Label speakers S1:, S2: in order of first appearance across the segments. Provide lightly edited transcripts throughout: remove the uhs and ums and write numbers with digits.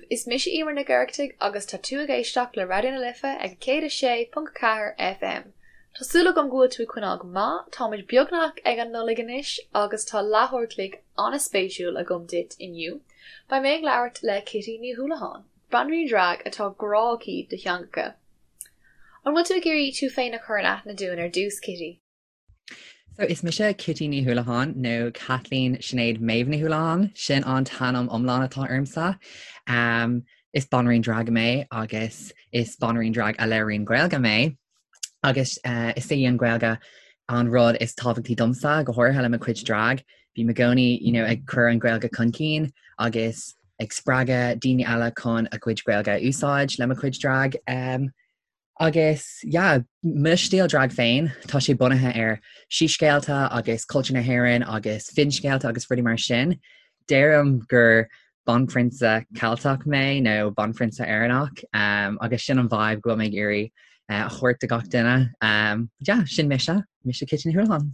S1: Is mise Emer Nic Oireachtaigh agus tá tú ag éisteacht le Raidió na Life ag 106.4 FM. Tá súil agam go bhfuil tú ag coinneáil go maith, táimid beagnach ag an Nollaig anois agus tá leathuair a chloig an-spéisiúil agam duit inniu. Beidh mé ag labhairt le Kitty Ní Houlihan, banríon drag atá grá aici do theangacha. An bhfuil tú ag iarraidh tú féin a chur in aithne dúinn ar dtús, Kitty?
S2: So is mise Kitty Ní Houlihan nó Kathleen Sinéad Méabh Ní Houlihan, sin an t-ainm iomlán atá ormsa. Um, is banríon drag mé agus is banríon drag a labhraíonn Gaeilge mé agus uh, is í an Ghaeilge an rud is tábhachtaí domsa, go háirithe le mo chuid drag. Bím i gcónaí you know, ag cur an Ghaeilge chun cinn agus ag spreagadh daoine eile chun a gcuid Gaeilge a úsáid le mo chuid drag. Um, Agus yeah, mo stíl drag féin, tá sé bunaithe ar síscéalta agus cultúr na hÉireann agus finscéalta agus rudaí mar sin. Deirim gur banphrionsa Ceilteach mé nó banphrionsa Éireannach um, agus sin an vibe go bhfuil mé ag iarraidh uh, a thabhairt do gach duine. Um, yeah, sin mise, mise Kitty Ní Houlihan.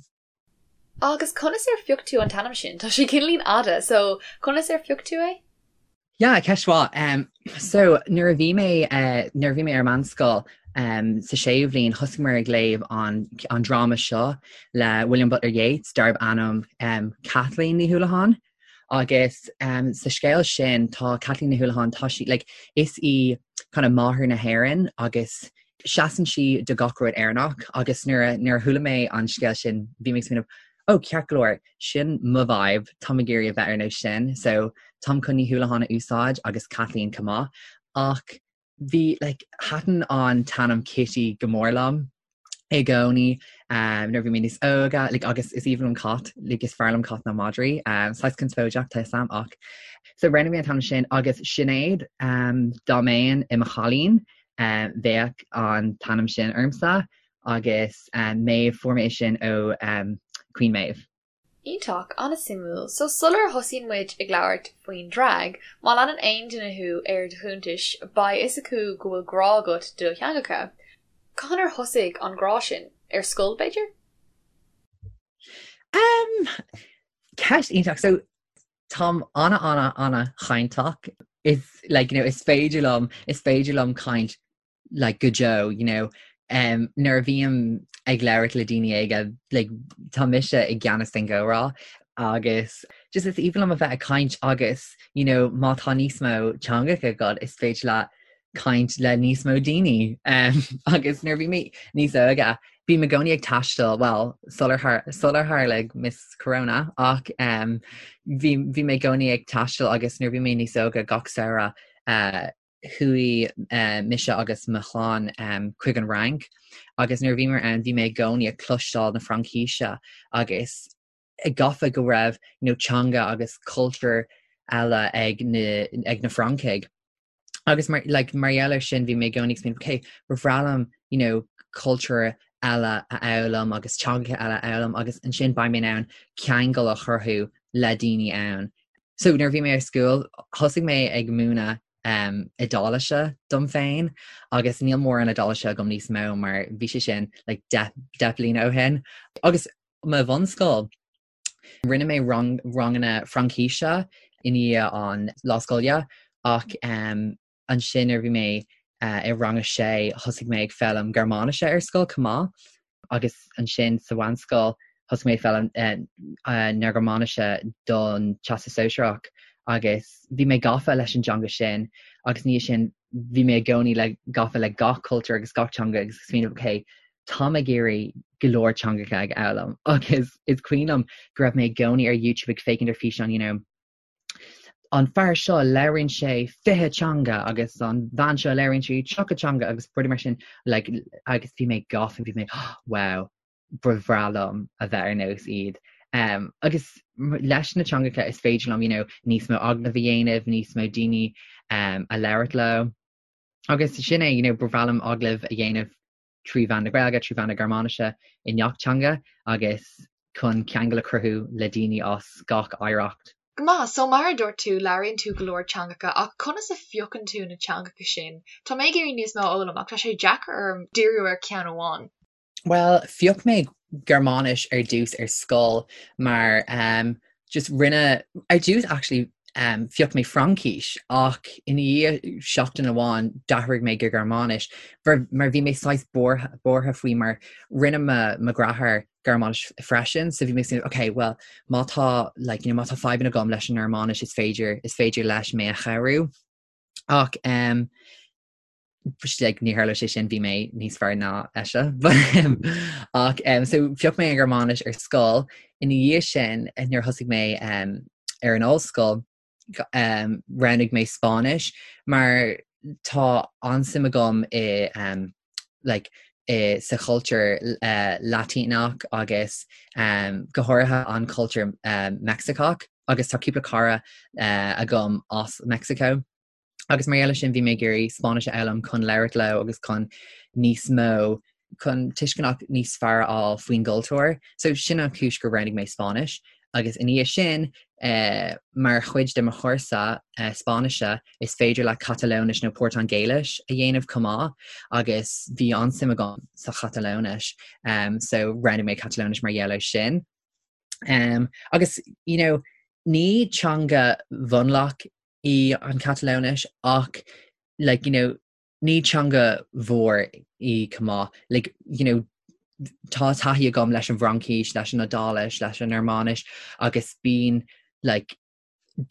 S1: Agus conas ar phioc tú an t-ainm sin? Tá sé cineáilín fhada, so conas ar phioc tú é?
S2: Yeah, ceist mhaith. Um, so nuair a bhí mé uh, nuair a bhí mé ar meánscoil um, sa séú bhliain thosaigh ag léamh an, an dráma seo le William Butler Yeats darb ainm um, Kathleen Ní Houlihan. Agus um, sa scéal sin tá Kathleen Ní Houlihan tá sí like, is í kind of máthair na hÉireann agus seasann sí do gach rud Éireannach agus nuair a nuair a chuala mé an scéal sin bhí mé ag smaoineamh oh ceart go leor sin mo vibe táim ag iarraidh a bheith ar nós sin so táim chun Ní Houlihan a úsáid agus Kathleen chomh maith ach bhí like thaitin an t-ainm Kitty go mór liom i gcónaí um, nuair bhí mé níos óga like, agus is aoibhinn liom cait like, is fearr liom cait ná madraí um, saghas conspóideach tá 'fhios a'm ach so roghnaigh mé an t-ainm sin agus Sinéad um, dá mbeinn i mo chailín um, bheadh an t-ainm sin ormsa agus um, Maeve fuair mé sin ó um, Queen Maeve.
S1: Iontach, an-suimiúil. So sular thosaíonn muid ag labhairt faoin drag, má leanann aon duine thú ar do chuntais, beidh fhios acu go bhfuil grá agat do theangacha. Cathain ar thosaigh an grá sin? Ar scoil, b'fhéidir?
S2: Um, ceist iontach. So táim ana ana ana chainteach. Is like, you know, is féidir liom is féidir liom caint like go deo you know um, nuair a bhím ag labhairt le daoine óga like, tá mise i gceannas den gcomhrá agus just is aoibhinn liom a bheith ag caint agus you know, má tá níos mó teangacha agat is féidir leat caint le níos mó daoine um, agus nuair bhí mé níos óige bím i gcónaí ag taisteal well sular sular tharla Miss Corona ach um, bhí bhí mé i gcónaí ag taisteal agus nuair bhí mé níos óige gach samhradh uh, chuaigh mise agus mo chlann chuig an Fhrainc agus nuair a bhíomar ann bhí mé i gcónaí ag cloisteáil na Fraincíse agus gafa go raibh you know, teanga agus cultúr eile ag na, ag na Francaigh. Agus mar, like, mar gheall air sin bhí mé i gcónaí ag smaoineamh, okay, ba bhreá liom you know, cultúr eile a fhoghlaim agus teangacha eile a fhoghlaim agus ansin beidh mé in ann ceangal a chruthú le daoine ann. So nuair a bhí mé ar scoil, thosaigh mé ag múineadh um, Iodáilise dom féin agus níl mórán Iodáilise agam níos mó mar bhí sé sin like, 10 bliana ó shin. Agus mo bhunscoil, rinne mé rang, ranganna Fraincíse i ndiaidh an lá scoile ach um, Ansin nuair a bhí mé i rang a sé thosaigh mé ag foghlaim Gearmáinise ar scoil chomh maith agus ansin sa mheánscoil thosaigh mé ag foghlaim na Gearmáinise don Teastas Sóisearach agus bhí mé gafa leis an dteanga sin agus ina dhiaidh sin bhí mé i gcónaí le gafa le gach cultúr agus gach teanga agus smaoineamh ok táim ag iarraidh go leor teangacha a fhoghlaim agus is cuimhin liom go raibh mé i gcónaí ar YouTube ag féachaint ar físeáin you know an fear seo labhraíonn sé 20 teanga agus an bhean seo labhraíonn sí 30 teanga agus rudaí mar sin like, agus bhí mé gafa bhí mé oh, wow ba bhreá liom a bheith ar nós iad. Um, agus leis na teangacha is féidir liom you know, níos mó agallamh a dhéanamh, níos mó daoine um, a labhairt leo. Agus sin é you know, ba bhreá liom agallamh a dhéanamh trí mheán na Gaeilge, trí mheán na Gearmáinise i ngach teanga agus chun ceangal a chruthú le daoine as gach oidhreacht.
S1: Go maith, so mar a dúirt tú, labhraíonn tú go leor teangacha ach conas a phiocann tú na teangacha sin? Tá mé ag iarraidh níos mó a fhoghlaim ach tá sé deacair orm díriú ar cheann amháin.
S2: Bhuel, phioc mé Gearmáinis ar dtús ar scoil mar um, just rinne ar dtús actually. um, phioc mé Fraincis ach ina dhiaidh seachtain amháin d'athraigh mé go Gearmáinis mar, mar bhí mé saghas buartha, buartha faoi mar rinne mo, mo dheartháir Gearmáinis freisin so bhí mé ag okay, well má tá like, you know, má tá fadhbanna agam leis an nGearmáinis is féidir is féidir leis mé a chabhrú. Ach um, like, ní tharla sé sin bhí mé níos fearr ná eisean. Ach um, so phioc mé an Ghearmáinis ar scoil ina dhiaidh sin eh, nuair thosaigh mé um, ar an ollscoil um, roghnaigh mé Spáinnis mar tá an-suim agam i um, like, i, sa chultúr uh, Laitíneach agus um, go háirithe an cultúr uh, Meicsiceach agus tá cúpla cara uh, agam as Mexico. Agus mar gheall air sin bhí mé ag iarraidh Spáinnis a fhoghlaim chun labhairt leo agus chun níos mó, chun tuisceanach níos fearr a fháil faoin gcultúr. So sin an chúis gur roghnaigh mé Spáinnis. Agus ina dhiaidh sin, eh, mar chuid de mo chúrsa eh, Spáinnise, is féidir leat Catalóinis nó Portaingéilis a dhéanamh chomh maith agus bhí an-suim agam sa Chatalóinis. Um, so roghnaigh mé Catalóinis mar gheall air sin. Um, agus, you know, ní teanga mhionlach í an Chatalóinis ach like, you know, ní teanga mhór í chomh maith. Like, you know, tá taithí agam leis an bhFraincis, leis an Iodáilis, leis an nGearmáinis agus bíonn like,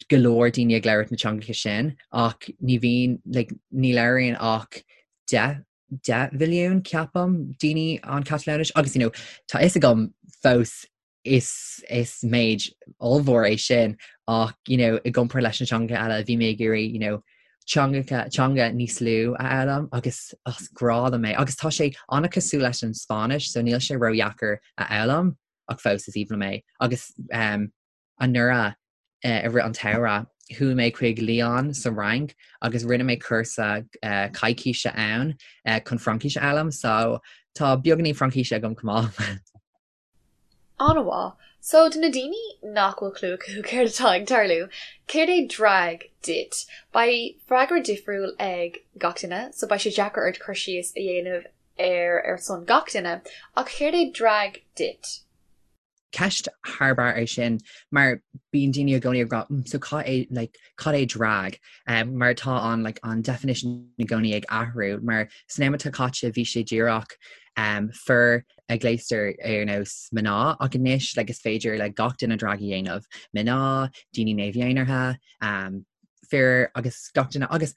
S2: go leor daoine ag labhairt na teangacha sin ach ní bhíonn like, ní labhraíonn ach 10 10 mhilliún ceapaim daoine an Chatalóinis agus you know, tá fhios agam fós is is méid ollmhór é sin ach you know, i gcomparáid leis na teangacha eile bhí mé ag iarraidh you know, teangacha teanga níos lú a fhoghlaim agus is grá liom é agus tá sé an-cosúil leis an Spáinnis so níl sé ródheacair a fhoghlaim ach fós is aoibhinn liom é agus um, anuraidh uh, i rith an tsamhraidh chuaigh mé chuig Lyon sa Fhrainc agus rinne mé cúrsa uh, coicíse ann uh, chun Fraincis a fhoghlaim so tá beagáinín Fraincise agam chomh maith.
S1: An-mhaith. So, do na daoine nach bhfuil clue acu céard atá ag tarlú, céard é drag duit? Beidh freagra difriúil ag gach duine, so beidh sé deacair ort cur síos a dhéanamh air ar son gach duine, ach céard é drag duit?
S2: Ceist thar barr é sin mar bíonn daoine i gcónaí ag rá mm, so cad é like, cad é drag? Um, mar tá an like, an definition i gcónaí ag athrú mar san am atá caite bhí sé díreach um, fir a gléastar ar nós mná ach anois like, is féidir le gach duine drag a dhéanamh, mná, daoine neamh-dhénartha, um, fir agus gach duine agus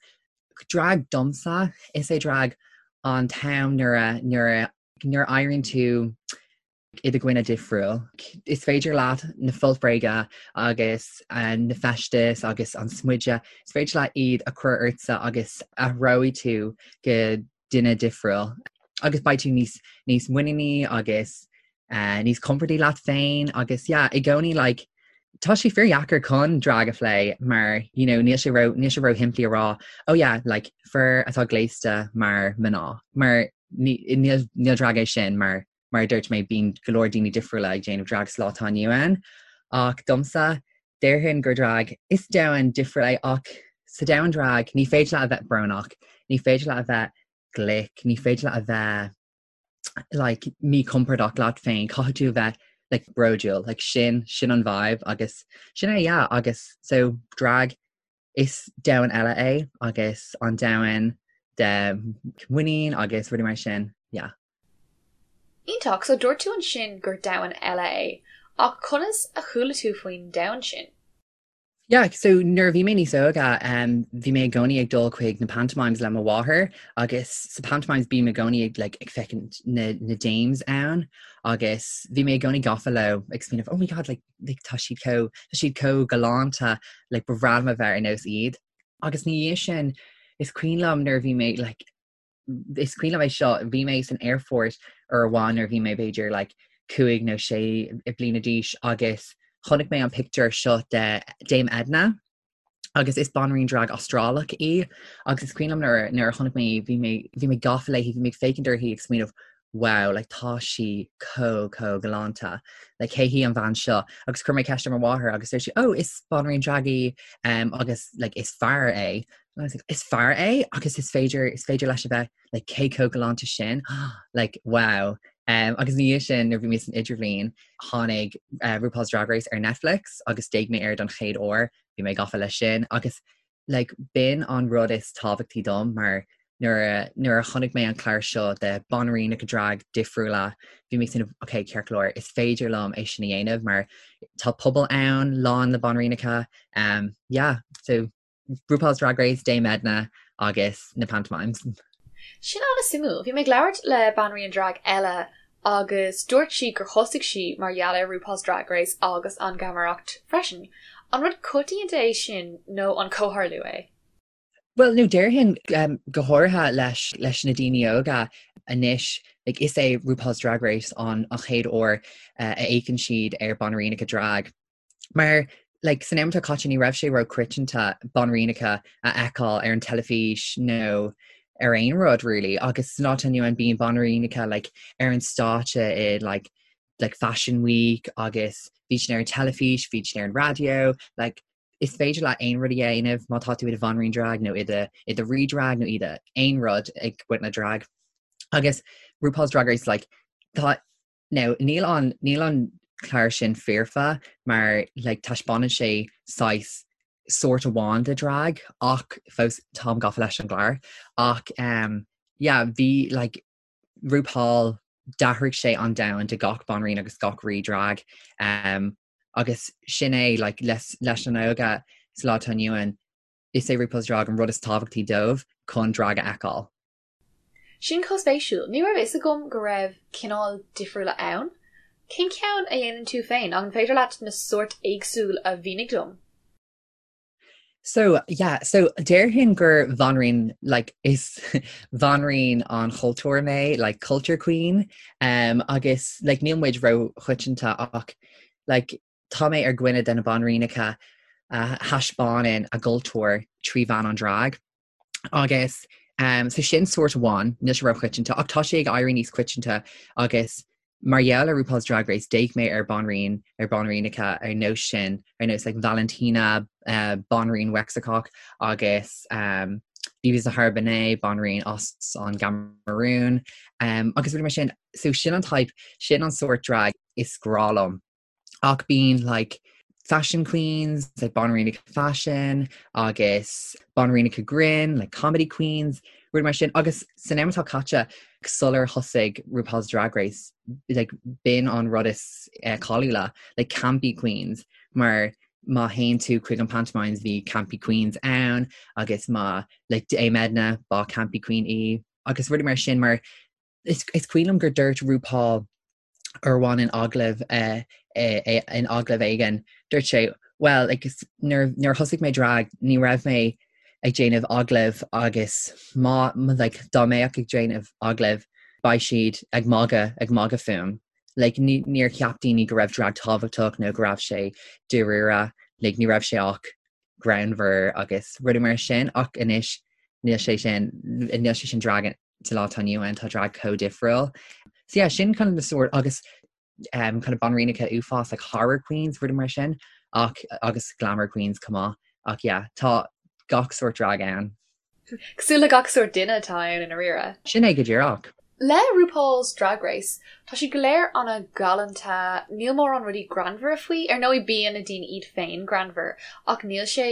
S2: drag domsa is é drag an t-am nuair a nuair a nuair a éiríonn tú i do dhuine difriúil. Is féidir leat na foirt bhréige agus uh, na feistis agus an smideadh, is féidir leat iad a chur ortsa agus athróidh tú go duine difriúil agus beidh tú níos níos muiníní agus uh, níos compordaí leat féin agus yeah, i gcónaí like, tá sé fíordheacair chun drag a phlé mar you know, níl sé ró níl sé ró-shimplí a rá oh yeah, like, fir atá gléasta mar mná mar níl níl drag é sin mar mar a dúirt mé bíonn go leor daoine difriúla ag déanamh drag sa lá atá inniu ann ach domsa déarfainn gur drag is domhan difriúil é ach sa domhan drag ní féidir leat a bheith brónach, ní féidir leat a bheith glic, ní féidir leat a bheith like míchompordach leat féin, caithfidh tú a bheith like bródúil, like sin sin an vibe agus sin é yeah agus so drag is domhan eile é agus an domhan de muinín agus rudaí mar sin yeah.
S1: Iontach, so dúirt tú ansin gur domhan eile é, ach conas a chuala tú faoin domhan sin?
S2: Yeah, so nuair a bhí mé níos óige, um, bhí mé i gcónaí ag dul chuig na pantomimes le mo mháthair agus sa pantomimes bím i gcónaí ag, like, ag féachaint na, na dames ann agus bhí mé i gcónaí gafa leo ag smaoineamh, oh my god, like, like, tá siad chomh, tá siad chomh galánta, like, ba bhreá liom a bheith ar nós iad. Agus ina dhiaidh sin, is cuimhin liom nuair a bhí mé, like, is cuimhin liom é seo, bhí mé san aerfort uair amháin nuair a bhí mé b'fhéidir like 5 nó 6 bliana d'aois agus chonaic mé an pictiúr seo de Dame Edna agus is banríon drag Astrálach í agus is cuimhin liom nuair nuair a chonaic mé í bhí mé bhí mé gafa léi, bhí mé ag féachaint uirthi ag smaoineamh wow like tá sí chomh chomh galánta like cé hí an bhean seo agus chuir mé ceist ar mo mháthair agus dúirt sí oh is banríon drag í um, agus like is fear é And I was like, is fear é agus is féidir is féidir leis a bheith like cé chomh galánta sin like wow um, agus ina dhiaidh sin nuair bhí mé san idirbhliain tháinig uh, RuPaul's Drag Race ar Netflix agus d'fhéach mé air don chéad uair. bhí mé gafa leis sin agus like b'in an rud is tábhachtaí dom mar nuair a nuair a chonaic mé an clár seo de banríonacha drag difriúla bhí mé sin ok ceart go leor is féidir liom é sin a dhéanamh mar tá pobal ann lán le banríonacha um, yeah so RuPaul's Drag Race, Dame Edna agus na pantomimes.
S1: Sin an-suimiúil. Bhí mé ag labhairt le banríon drag eile agus dúirt sí gur thosaigh sí mar gheall ar RuPaul's Drag Race agus an gheamaireacht freisin. An rud coitianta é sin nó an comhtharlú é?
S2: Bhuel, nó déarfainn go háirithe leis leis na daoine óga anois, like, is é RuPaul's Drag Race an an chéad uair a fhéachann siad ar banríonacha drag. Mar like, san am atá caite ní raibh sé ró-choitianta banríonacha a fheiceáil ar an teilifís nó ar aon rud really agus san lá atá inniu ann bíonn banríonacha like, ar an stáitse i like, like Fashion Week agus bíonn siad ar an teilifís, bíonn siad ar an raidió, like, is féidir leat aon rud a dhéanamh má tá tú i do bhanríon drag nó i do i do rí drag nó i do aon rud ag baint le drag. Agus RuPaul's Drag Race like, tá Now, níl an, níl an clár sin foirfe mar like taispeánann sé saghas sórt amháin de drag ach fós táim gafa leis an gclár ach um, yeah, bhí like RuPaul d'athraigh sé an domhan do gach banríon agus gach rí drag um, agus sin é like, leis, leis na hóga sa lá atá inniu ann is é RuPaul's Drag an rud is tábhachtaí dóibh chun drag a fheiceáil.
S1: Sin chomh spéisiúil. Ní raibh fhios agam go raibh cineál difriúla ann. Cén ceann a dhéanann tú féin? An féidir leat na sóirt éagsúil a mhínigh dom?
S2: So, yeah, so déarfainn gur bhanríon, like, is bhanríon an chultúir mé, like, culture queen, um, agus, like, níl muid ró-choitianta ach, like, tá mé ar dhuine de na banríonacha a thaispeánann a gcultúr trí mheán an drag. Agus um, so sin sórt amháin, níl sé ró-choitianta, ach tá sé ag éirí níos coitianta agus mar gheall ar RuPaul's Drag Race d'fhéach mé ar banríon ar banríonacha ar nós sin, ar nós like, Valentina, uh, banríon Mheicsiceach agus um, BeBe Zahara Benet, banríon as an gCamarún, um, agus rudaí mar sin, so sin an type, sin an sórt drag is grá liom. Ach bíonn like fashion queens, like banríonacha fashion agus banríonacha grinn, like comedy queens, rudaí mar sin. Agus san am atá caite sular thosaigh RuPaul's Drag Race, like b'in an rud is eh, cáiliúla, like campy queens, mar má théann tú chuig an pantomimes bhí campy queens ann agus má like Dame Edna ba campy queen í agus rudaí mar sin mar is, is cuimhin liom gur dúirt RuPaul uair amháin in agallamh in agallamh éigin, dúirt sé, well, like, nuair, nuair a thosaigh mé drag, ní raibh mé ag déanamh agallamh agus má, like, dá mbeadh ag déanamh agallamh, beidh siad ag magadh, ag magadh fúm. Like, ní, níor cheap daoine go raibh drag tábhachtach nó go raibh sé dáiríre, like, ní raibh sé ach greannmhar agus rudaí mar sin, ach anois níl sé sin, níl sé sin drag sa lá atá inniu ann tá drag chomh difriúil. So yeah, sin kind of the sort agus um, kind of banríonacha uafás like horror queens rudaí mar sin ach agus glamour queens chomh maith ach yeah, tá gach sort drag ann.
S1: Cosúil le gach sort duine atá ann i ndáiríre.
S2: Sin é go díreach.
S1: Le RuPaul's Drag Race, tá siad go léir an-ghalánta, níl mórán rudaí greannmhara faoi, ar ndóigh bíonn na daoine iad féin greannmhar, ach níl sé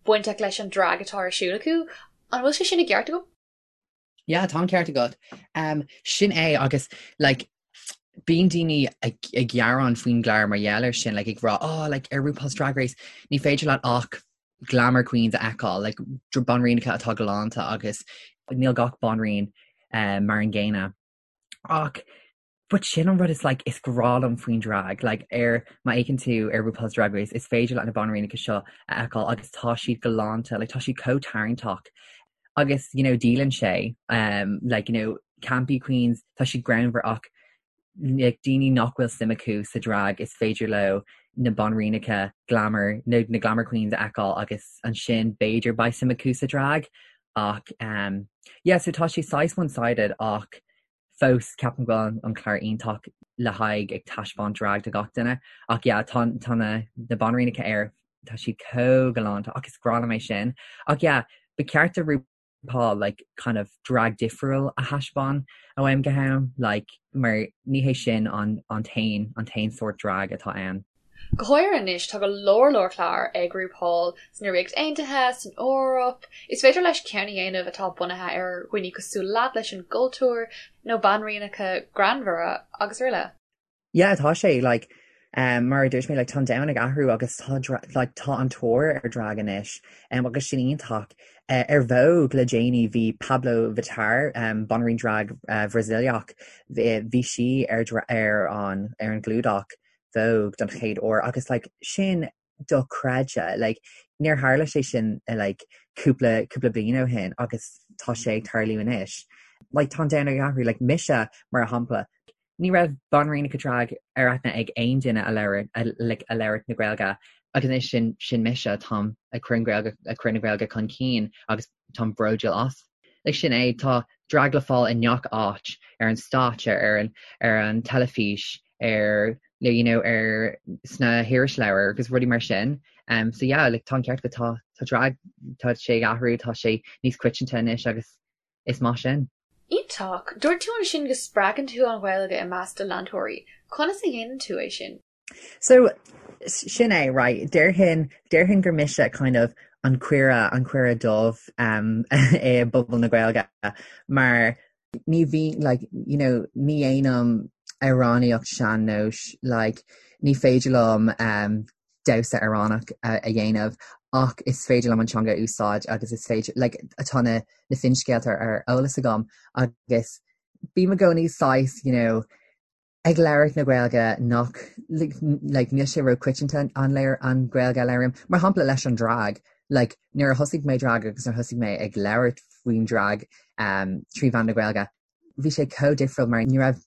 S1: bainteach leis an drag atá ar siúl acu. An bhfuil sé sin i gceart agam?
S2: Yeah, tá an ceart agat. Um, sin é agus like, bíonn daoine ag, ag gearán faoin gclár mar gheall air sin, like, ag rá, oh, like, ar RuPaul's Drag Race, ní féidir leat ach glamour queens a fheiceáil, like, banríonacha atá galánta agus níl gach banríon um, mar an gcéanna. Ach But sin an rud is like is grá liom faoin drag, like ar má fhéachann tú ar RuPaul's Drag Race is féidir leat na banríonacha seo a fheiceáil agus tá siad galánta, like tá siad chomh tarraingteach agus you know díolann sé um, like you know campy queens tá siad greannmhar ach like daoine nach bhfuil suim acu sa drag is féidir leo na banríonacha glamour na, na glamour queens a fheiceáil agus ansin b'fhéidir beidh suim acu sa drag ach um, yeah so tá sé saghas one-sided ach fós ceapaim go bhfuil an clár iontach le haghaidh ag taispeáint drag do gach duine ach yeah tá tá na na banríonacha air tá siad chomh galánta ach is grá liom é sin ach yeah ba cheart do RuPaul like kind of drag difriúil a thaispeáin ó am go ham like mar ní hé sin an an t-aon an t-aon sórt drag atá ann.
S1: Go háirithe anois, tá go leor leor clár ag RuPaul sna Ríocht Aontaithe, san Eoraip. Is féidir leis ceann a dhéanamh atá bunaithe ar dhaoine cosúil leat, leis an gcultúr, nó banríonacha greannmhara, agus araile.
S2: Yeah, tá sé, like, um, mar a dúirt mé, like, tá an domhan ag athrú agus tá, like, tá an tóir ar drag anois, um, agus sin iontach. Uh, ar Vogue le déanaí bhí Pabllo Vittar, um, banríon drag uh, Bhrasaíleach, bhí sí ar, ar, an, ar an gclúdach Vogue don chéad uair agus like, sin dochreidte, like, níor tharla sé sin like, cúpla, cúpla bliain ó shin agus tá sé ag tarlú anois. Like, tá an domhan ag athrú, like, mise mar shampla, ní raibh banríonacha drag ar aithne ag aon duine a labhair, a, like, a labhair na Gaeilge agus anois sin, sin mise, táim ag cur an Ghaeilge, ag cur na Gaeilge chun cinn agus táim bródúil as. Like, sin é, tá drag le fáil i ngach áit, ar an stáitse, ar an, ar an teilifís, ar you know ar sna hirisleabhair agus rudaí mar sin. Um, so yeah, like, tá an ceart agat tá tá drag tá sé ag athrú, tá sé níos coitianta anois agus is maith sin.
S1: Iontach! Dúirt tú ansin go spreagann tú an Ghaeilge i measc do leantóirí. Conas a dhéanann tú é sin?
S2: So, sin é, right, déarfainn, déarfainn gur mise kind of an caora, an caora dubh um, i bpobal na Gaeilge mar ní bhí, like, you know, ní dhéanaim amhránaíocht sean-nóis, like, ní féidir liom um, damhsa Éireannach a, a dhéanamh ach is féidir liom an teanga a úsáid agus is féidir, like, tá na, na finscéalta ar eolas agam agus bím i gcónaí saghas, you know, ag labhairt na Gaeilge nach, like, níl sé róchoitianta an léir an Ghaeilge a labhraím. Mar shampla leis an drag, like, nuair a thosaigh mé drag agus nuair a thosaigh mé ag labhairt faoin drag um, trí mheán na Gaeilge, bhí sé chomh difriúil mar ní raibh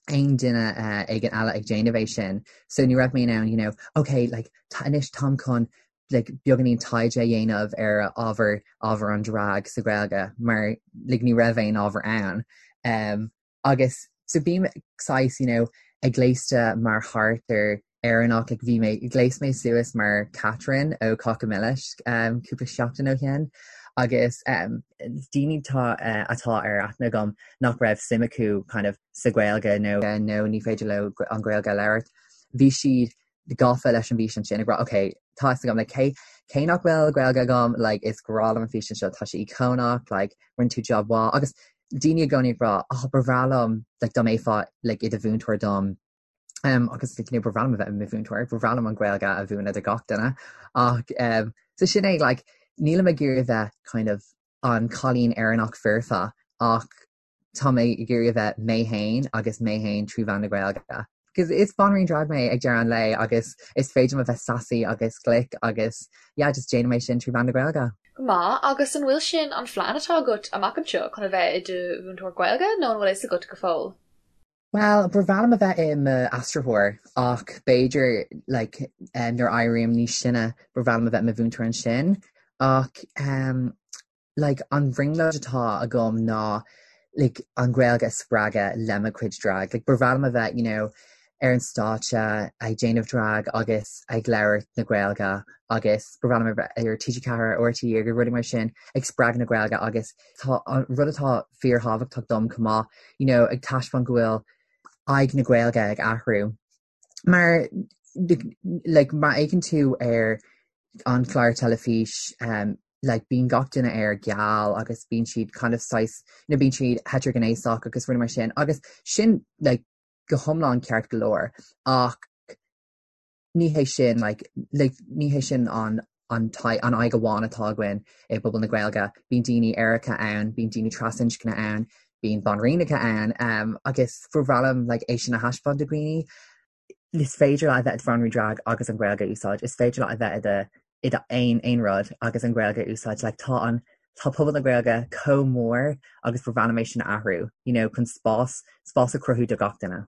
S2: aon duine uh, éigin eile ag déanamh é sin. So ní raibh mé in ann, you know, okay, like, anois táim chun like, beagáinín taighde a dhéanamh ar ábhar ábhar an drag sa Ghaeilge mar like, ní raibh aon ábhar ann. Um, Agus so bím saghas, you know, ag gléasta mar charachtar Éireannach, like bhí mé, ghléas mé suas mar Catherine ó Cáca Milis um, cúpla seachtain ó shin agus um, daoine tá, uh, atá ar aithne agam nach raibh suim acu kind of sa Ghaeilge nó nó ní féidir leo an Ghaeilge a labhairt. Bhí siad gafa leis an bhfíseán sin ag rá ok tá fhios agam like cé cé nach bhfuil Gaeilge agam like is grá liom an físeán seo tá sé íocónach like rinne tú job mhaith agus daoine i gcónaí ag rá oh ba bhreá liom like dá mbeifeá like i do mhúinteoir dom um, agus like, you know, ba bhreá liom a bheith i mo mhúinteoir ba bhreá liom an Ghaeilge a mhúineadh do gach duine ach um, so sin é like nílim ag iarraidh bheith kind of an cailín Éireannach foirfe ach Tá mé ag iarraidh a bheith mé féin agus mé féin trí mheán na Gaeilge. Because is banríon drag mé ag deireadh an lae agus is féidir liom a bheith sassy agus glic agus yeah just déanaim é sin trí mheán na Gaeilge.
S1: Go maith, agus an bhfuil sin an phlean atá agat amach anseo chun a bheith i do mhúinteoir Gaeilge nó an bhfuil fhios agat go fóill?
S2: Bhuel, ba bhreá liom a bheith i m'aistritheoir ach b'fhéidir like nuair a éirím níos sine ba bhreá liom a bheith i mo mhúinteoir ansin ach um, like an bhrionglóid atá agam ná like an Ghaeilge a spreagadh le mo chuid drag. Like ba bhreá liom a bheith you know ar an stáitse ag déanamh drag agus ag labhairt na Gaeilge agus ba bhreá liom a bheith ar TG4 RTÉ agus rudaí mar sin ag spreagadh na Gaeilge agus tá an rud atá fíorthábhachtach dom chomh maith you know ag taispeáint go bhfuil aghaidh na Gaeilge ag athrú. Mar like má fhéachann tú ar an chlár teilifís um, like bíonn gach duine air geal agus bíonn siad kind of saghas you know, bíonn siad heitrighnéasach agus rudaí mar sin agus sin like go hiomlán ceart go leor ach ní hé sin like, like ní hé sin an an an aghaidh amháin atá againn i bpobal na Gaeilge. Bíonn daoine aeracha ann, bíonn daoine trasinscne ann, bíonn banríonacha ann um, agus ba bhreá liom like, é sin a thaispeáint do dhaoine. Is féidir leat a bheith i do bhanríon drag agus an Ghaeilge a úsáid. Is féidir leat a bheith i do i do aon aon rud agus an Ghaeilge a úsáid. Like, tá an tá pobal na Gaeilge chomh mór agus ba bhreá liom é sin a athrú, you know, chun spás spás a chruthú do gach duine.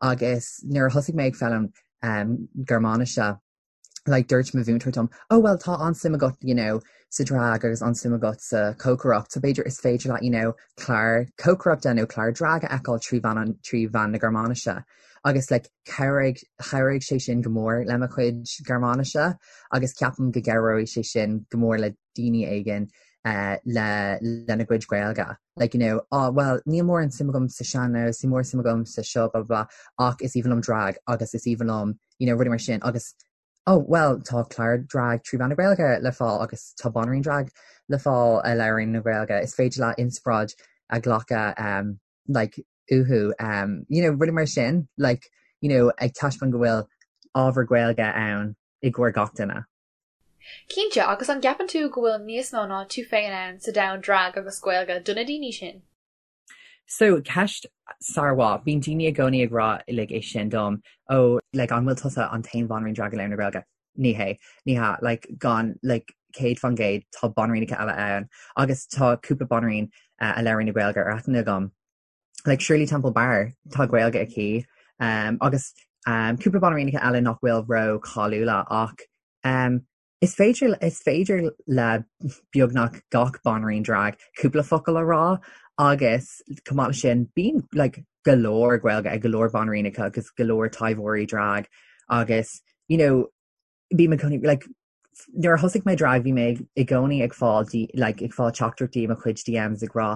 S2: Agus nuair a thosaigh mé ag foghlaim um, Gearmáinise, like dúirt mo mhúinteoir dom, oh well tá an-suim agat you know, sa drag agus an-suim agat sa chócaireacht, so b'fhéidir is féidir leat you know, clár cócaireachta nó clár drag a fheiceáil trí mheán an trí mheán na Gearmáinise. Agus like chabhraigh chabhraigh sé sin go mór le mo chuid Gearmáinise agus ceapaim go gcabhróidh sé sin go mór le daoine éigin. uh, le lena gcuid Gaeilge. Like, you know, oh, well, níl mórán suim agam sa sean-nós, níl mórán suim agam sa seo, blah, blah, blah, ach is aoibhinn liom drag agus is aoibhinn liom, you know, rudaí mar sin agus oh, well, tá clár drag trí mheán na Gaeilge le fáil agus tá banríon drag le fáil a labhraíonn na Gaeilge. Is féidir leat inspioráid a ghlacadh um, like, uathu, um, you know, rudaí mar sin, like, you know, ag taispeáint go bhfuil ábhar Gaeilge ann i gcomhair gach duine.
S1: Cinnte, agus an gceapann tú go bhfuil níos mó ná tú féin ann sa domhan drag agus Gaeilge do na daoine sin?
S2: So, ceist sármhaith. Bíonn daoine i gcónaí ag rá like é sin dom, oh, like an bhfuil tusa an t-aon bhanríon drag a labhrann na Gaeilge? Ní hé. Ní hea. Like gan, like 100% tá banríonacha eile ann agus tá cúpla banríon uh, a labhrann na Gaeilge ar aithne agam. Like Shirley Temple Bar, tá Gaeilge aici um, agus um, cúpla banríonacha eile nach bhfuil ró-cháiliúla ach um, Is féidir is féidir le beagnach gach banríon drag cúpla focal a rá agus chomh maith leis sin bíonn like go leor Gaeilge ag go leor banríonacha agus go leor taibheoirí drag agus you know bím i gcónaí like nuair a thosaigh mé drag bhí mé i gcónaí ag fáil like ag fáil teachtaireachtaí i mo chuid DMs ag rá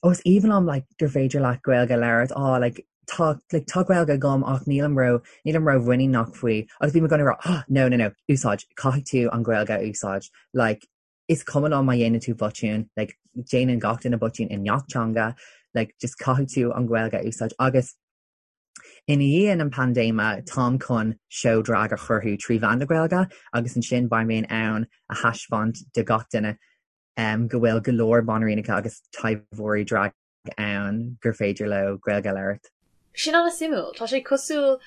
S2: oh is aoibhinn liom like gur féidir leat Gaeilge a labhairt oh like tá like tá Gaeilge agam ach nílim ró nílim ró-mhuiníneach faoi agus bím i gcónaí ag rá oh no no no úsáid caithfidh tú an Ghaeilge a úsáid like is cuma liom má dhéanann tú botún like déanann gach duine botún i ngach teanga like just caithfidh tú an Ghaeilge a úsáid agus ina dhiaidh an paindéime táim chun seó drag a chruthú trí mheán na Gaeilge agus ansin beidh mé in ann a thaispeáint do gach duine um, go bhfuil go leor banríonacha agus taibheoirí drag ann gur féidir leo Gaeilge a labhairt.
S1: Sin an-suimiúil. Tá sé cosúil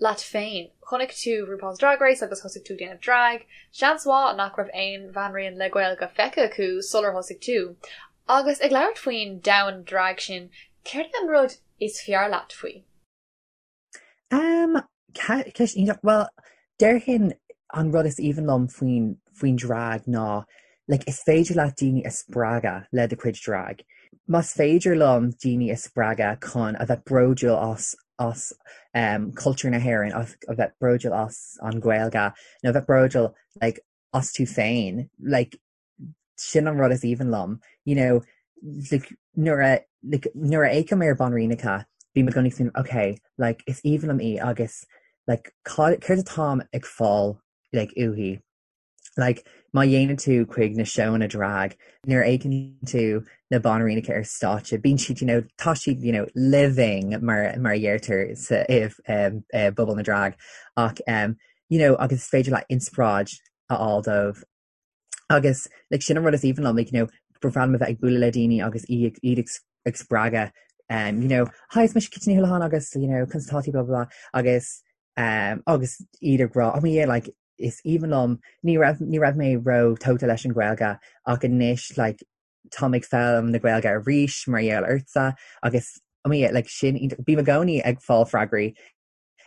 S1: leat féin. Chonaic tú RuPaul's Drag Race agus thosaigh tú ag déanamh drag. Seans mhaith nach raibh aon bhanríon le Gaeilge feicthe acu sular thosaigh tú. Agus ag labhairt faoin domhan drag sin, céard é an rud is fearr leat faoi?
S2: Um, ceist iontach. Bhuel, déarfainn an rud is aoibhinn liom faoin, faoin drag ná like, is féidir leat daoine a spreagadh le do chuid drag. Más féidir liom daoine a spreagadh chun a bheith bródúil as as um, cultúr na hÉireann, as, a bheith bródúil as an Ghaeilge, nó a bheith bródúil like, as tú féin, like, sin an rud is aoibhinn liom you know like nuair a like nuair a fhéachaim ar banríonacha bím i gcónaí ag smaoineamh ok like is aoibhinn liom í agus like céard atáim ag fáil like uaithi like má théann tú chuig na seónna drag nuair a fhéachann tú na banríonacha ar stáitse bíonn siad you know tá siad you know living mar mar a dheirtear sa i um, i bpobal na drag ach um, you know agus is féidir leat inspioráid a fháil dóibh Agus like sin an rud is aoibhinn liom like you know ba bhreá liom a bheith ag bualadh le daoine agus iad iad ag ag spreagadh um you know hi is mise Kitty Ní Houlihan agus you know conas atá tú blah blah blah agus um agus iad ag rá oh yeah like is aoibhinn liom ní raibh ní raibh mé ró tógtha leis an Ghaeilge ach anois like táim ag foghlaim na Gaeilge arís mar gheall ortsa agus oh yeah like sin bím i gcónaí ag fáil freagraí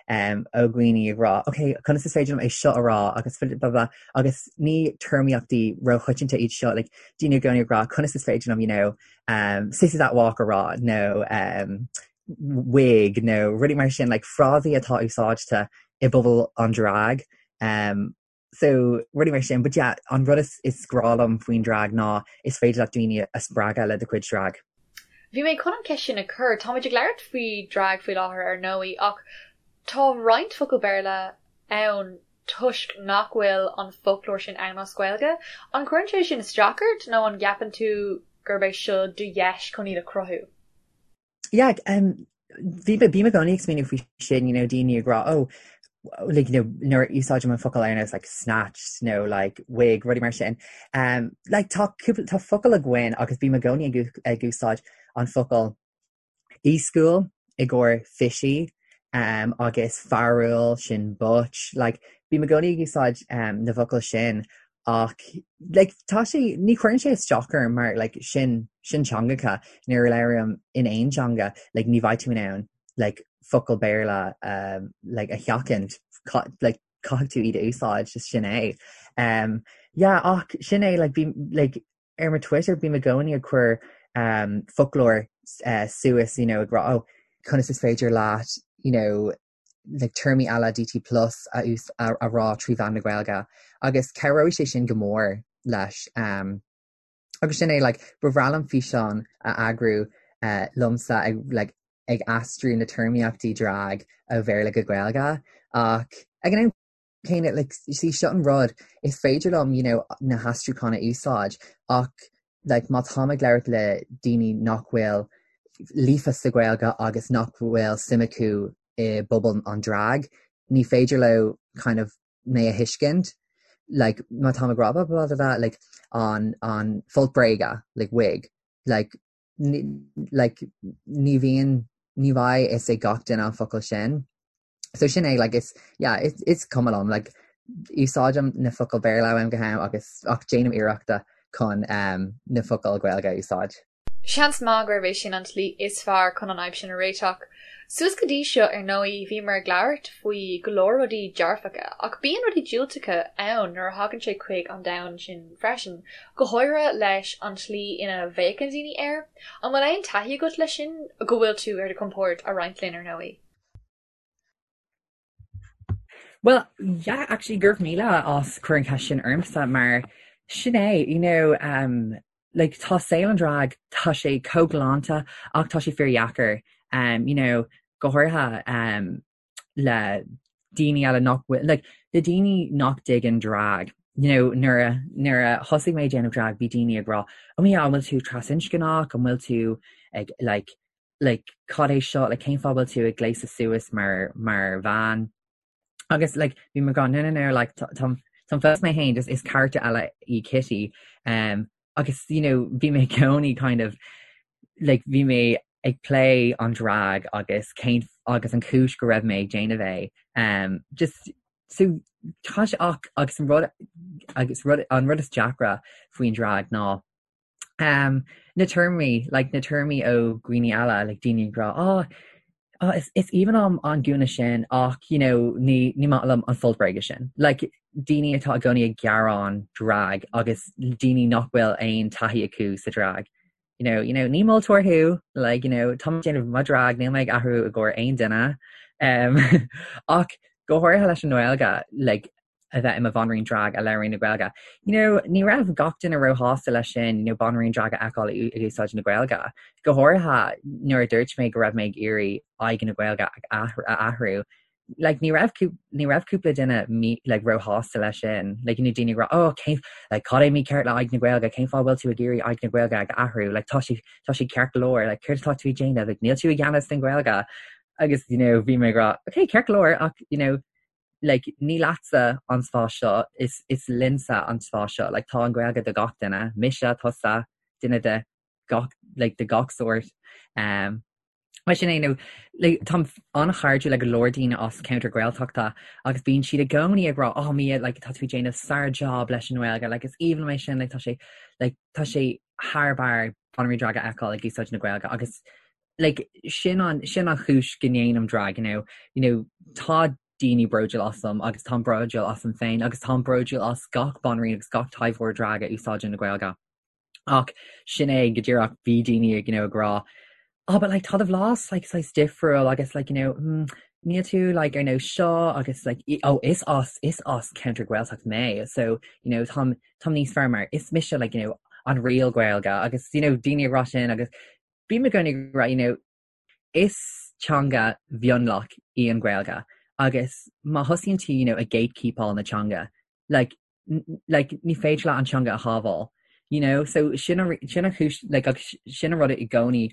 S2: um, ó dhaoine ag rá, ok, conas is féidir liom é seo a rá agus blah, blah, agus ní téarmaíochtaí róchoitianta iad seo, like, daoine i gcónaí ag rá, conas is féidir liom, you know, um, sissy that walk a rá, nó um, wig, nó rudaí mar sin, like, frásaí atá úsáidte i bpobal an drag. Um, So, rudaí mar sin, but yeah, an rud is, is grá liom faoin drag ná is féidir leat daoine a spreagadh le do chuid drag.
S1: Bhí mé chun an cheist sin a chur. Táimid ag labhairt faoi drag faoi láthair ar ndóigh, ach tá roinnt focal Béarla ann toisc nach bhfuil an foclóir sin ann as Gaeilge. An gcuireann sé sin isteach ort nó an gceapann tú gurb é seo do dheis chun iad a chruthú?
S2: Yeah, um, bhí bím i gcónaí ag smaoineamh faoi sin, you know, daoine ag rá, oh, like, you know, nuair a úsáidim an focal ar nós like snatched nó like wig, rudaí mar sin. Um, like, tá, tá focal againn agus bím i gcónaí ag, ag úsáid an focal éascúil i gcomhair fishy um, agus fearúil sin butch, like, bím i gcónaí ag úsáid um, na bhfocal sin Ach like tá sé, ní chuireann sé isteach orm mar like sin, sin teangacha nuair a labhraím in aon teanga like ní bheidh tú in ann like focal Béarla um like a sheachaint like caithfidh tú iad a úsáid just sin é. Um yeah ach sin é like bím like ar mo Twitter bím i gcónaí ag cur um foclóir uh, suas you know ag rá oh conas is féidir leat you know like téarmaí LADT plus a a rá trí mheán na Gaeilge agus cabhróidh sé sin go mór leis. Um, Agus sin é, like, ba bhreá liom físeán a eagrú uh, liomsa ag, like, ag aistriú na téarmaíochtaí drag ó Bhéarla go Gaeilge ach ag an am céanna, like, see, seo an rud, is féidir liom, you know, na haistriúcháin a úsáid ach like, má táim ag labhairt le daoine nach bhfuil líofa sa Ghaeilge agus nach bhfuil suim acu i bpobal an drag, ní féidir leo kind of mé a thuiscint, like, má táim ag rá blah blah blah blah, like, an, an folt bréige, like, wig, like, ní, like, ní bhíonn, ní bheidh fhios ag gach duine an focal sin. So sin é, like, is, yeah, is, is cuma liom, like, úsáidim na focail Béarla ó am go ham agus ach déanaim iarrachta chun um, na focail Gaeilge a úsáid.
S1: Seans maith gurb é sin an tslí is fearr chun an fhadhb sin a réiteach. Suas go dtí seo, ar ndóigh, bhíomar ag labhairt faoi go leor rudaí dearfacha, ach bíonn rudaí diúltacha ann nuair a thagann sé chuig an domhan sin freisin, go háirithe leis an tslí ina bhféachann daoine air. An bhfuil aon taithí agat leis sin, go bhfuil tú ar do chompord a roinnt linn, ar ndóigh?
S2: Well, yeah, actually, go raibh míle as cur an cheist sin ormsa mar sin é, you know, um, like, tá saol an drag, tá sé chomh galánta ach tá sé fíordheacair, um, you know, go háirithe um, le daoine eile nach bhfuil, like, le daoine nach dtuigeann drag, you know, nuair a, nuair a thosaigh mé ag déanamh drag, bhí daoine ag rá, oh yeah, an bhfuil tú trasinscneach, an bhfuil tú ag, like, like cad é seo, like cén fáth bhfuil tú ag gléasadh suas mar mar bhean? Agus like bhí mé ag rá no no no like tá táim táim fós mé féin just is character eile í Kitty um, agus you know bhí mé i gcónaí kind of like bhí mé ag plé an drag agus cén agus an chúis go raibh mé ag déanamh é um, just so tá sé ach agus an rud agus rud an rud is deacra faoin drag ná Um, na téarmaí, like na téarmaí ó dhaoine eile, like daoine ag rá, oh, oh, is, is aoibhinn liom an gúna sin ach, you know, ní, ní maith liom an folt bréige sin. Like, daoine atá i gcónaí ag gearán drag agus daoine nach bhfuil aon taithí acu sa drag. You know, you know, ní moltóir thú, like, you know, tá mé ag déanamh mo drag, níl mé ag athrú i gcomhair aon duine. Um, ach go háirithe leis an nGaeilge, like, a bheith i mo bhanríon drag a labhraíonn na Gaeilge. You know, ní raibh gach duine róshásta leis sin, you know, banríon drag a fheiceáil ag úsáid na Gaeilge. Go háirithe nuair a dúirt mé go raibh mé ag iarraidh aghaidh na Gaeilge a athrú. Like, ní raibh ní raibh cúpla duine mí, like, róshásta leis sin. Like, you know, daoine ag rá, oh, cén, like, cad é mícheart le aghaidh na Gaeilge, cén fáth bhfuil tú ag iarraidh aghaidh na Gaeilge a athrú? Like, tá sé, tá sé ceart go leor, like, céard atá tú ag déanamh? Like, níl tú i gceannas den Ghaeilge. Agus, you know, bhí mé ag rá, okay, ceart go leor, ach, you know, like ní leatsa an spás seo, is is linnse an spás seo, like tá an Ghaeilge do gach duine, mise, tusa, duine de gach like de gach sórt. Um, mar sin é, nó like, táim an-chairdiúil le go leor daoine as ceantar Gaeltachta agus bíonn siad i gcónaí ag rá, oh Mia, like, tá tú ag déanamh sár-job leis an nGaeilge, like, is aoibhinn liom é sin, like, tá sé, like, tá sé thar barr banríon drag a fheiceáil ag úsáid na Gaeilge agus like, sin an, sin an chúis go ndéanaim drag, you know, you know, tá daoine bródúil asam agus táim bródúil asam féin agus táim bródúil as gach banríon agus gach taibheoir drag a úsáideann na Gaeilge. Ach sin é go díreach bhí daoine ag, you know, ag rá, oh, but like, tá do bhlas like, saghas difriúil agus like, you know, mm, níl tú like, ar nós seo agus like, oh, is as, is as ceantar Gaeltacht mé, so, you know, táim, táim níos fearr mar is mise like, you know, an real Gaeilge agus, you know, daoine ag rá sin agus Bím i gcónaí ag rá, you know, is teanga mhionlach í an Ghaeilge agus má thosaíonn tú, you know, ag gatekeepáil na teanga, like, like, ní féidir leat an teanga a shábháil, you know, so sin an, sin an chúis, like, agus sin an rud i gcónaí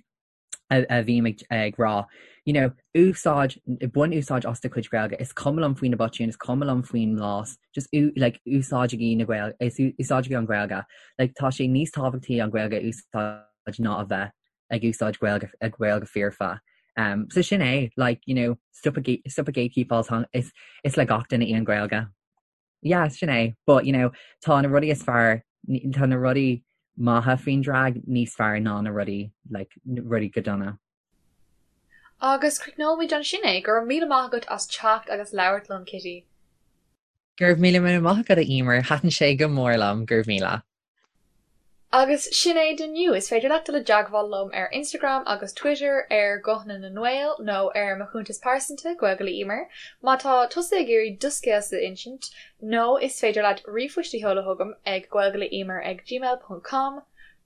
S2: a, a bhím ag, ag rá, you know, úsáid, bain úsáid as do chuid Gaeilge, is cuma liom faoi na botúin, is cuma liom faoin mblas, just like, úsáidigí na Gaeilge, úsáidigí an Ghaeilge, like, tá sé níos tábhachtaí an Ghaeilge a úsáid ná a bheith ag úsáid Gaeilge ag Gaeilge foirfe. Um, so sin é, like, you know, stop ag stop ag gatekeepáil is, is le gach duine í an Ghaeilge. Yeah, sin é, but you know, tá na rudaí is fearr, tá na rudaí maithe faoin drag níos fearr ná na rudaí like, rudaí go dona.
S1: Agus críochnóimid ansin é, go raibh míle maith agat as teacht agus labhairt liom, Kitty.
S2: Go raibh míle míle maith agat a Emer, thaitin sé go mór liom, go raibh míle.
S1: Agus sin é d'inniu. Is féidir leat dul i dteagmháil liom ar Instagram agus Twitter ar Guthanna na nGael nó ar mo chuntas pearsanta, Gaeilge le Emer, má tá tusa ag iarraidh do scéalsa a insint, nó is féidir leat ríomhphost a sheoladh chugam ag gaeilgeleemer ag gmail ponc com.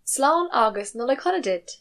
S1: Slán agus Nollaig Shona duit!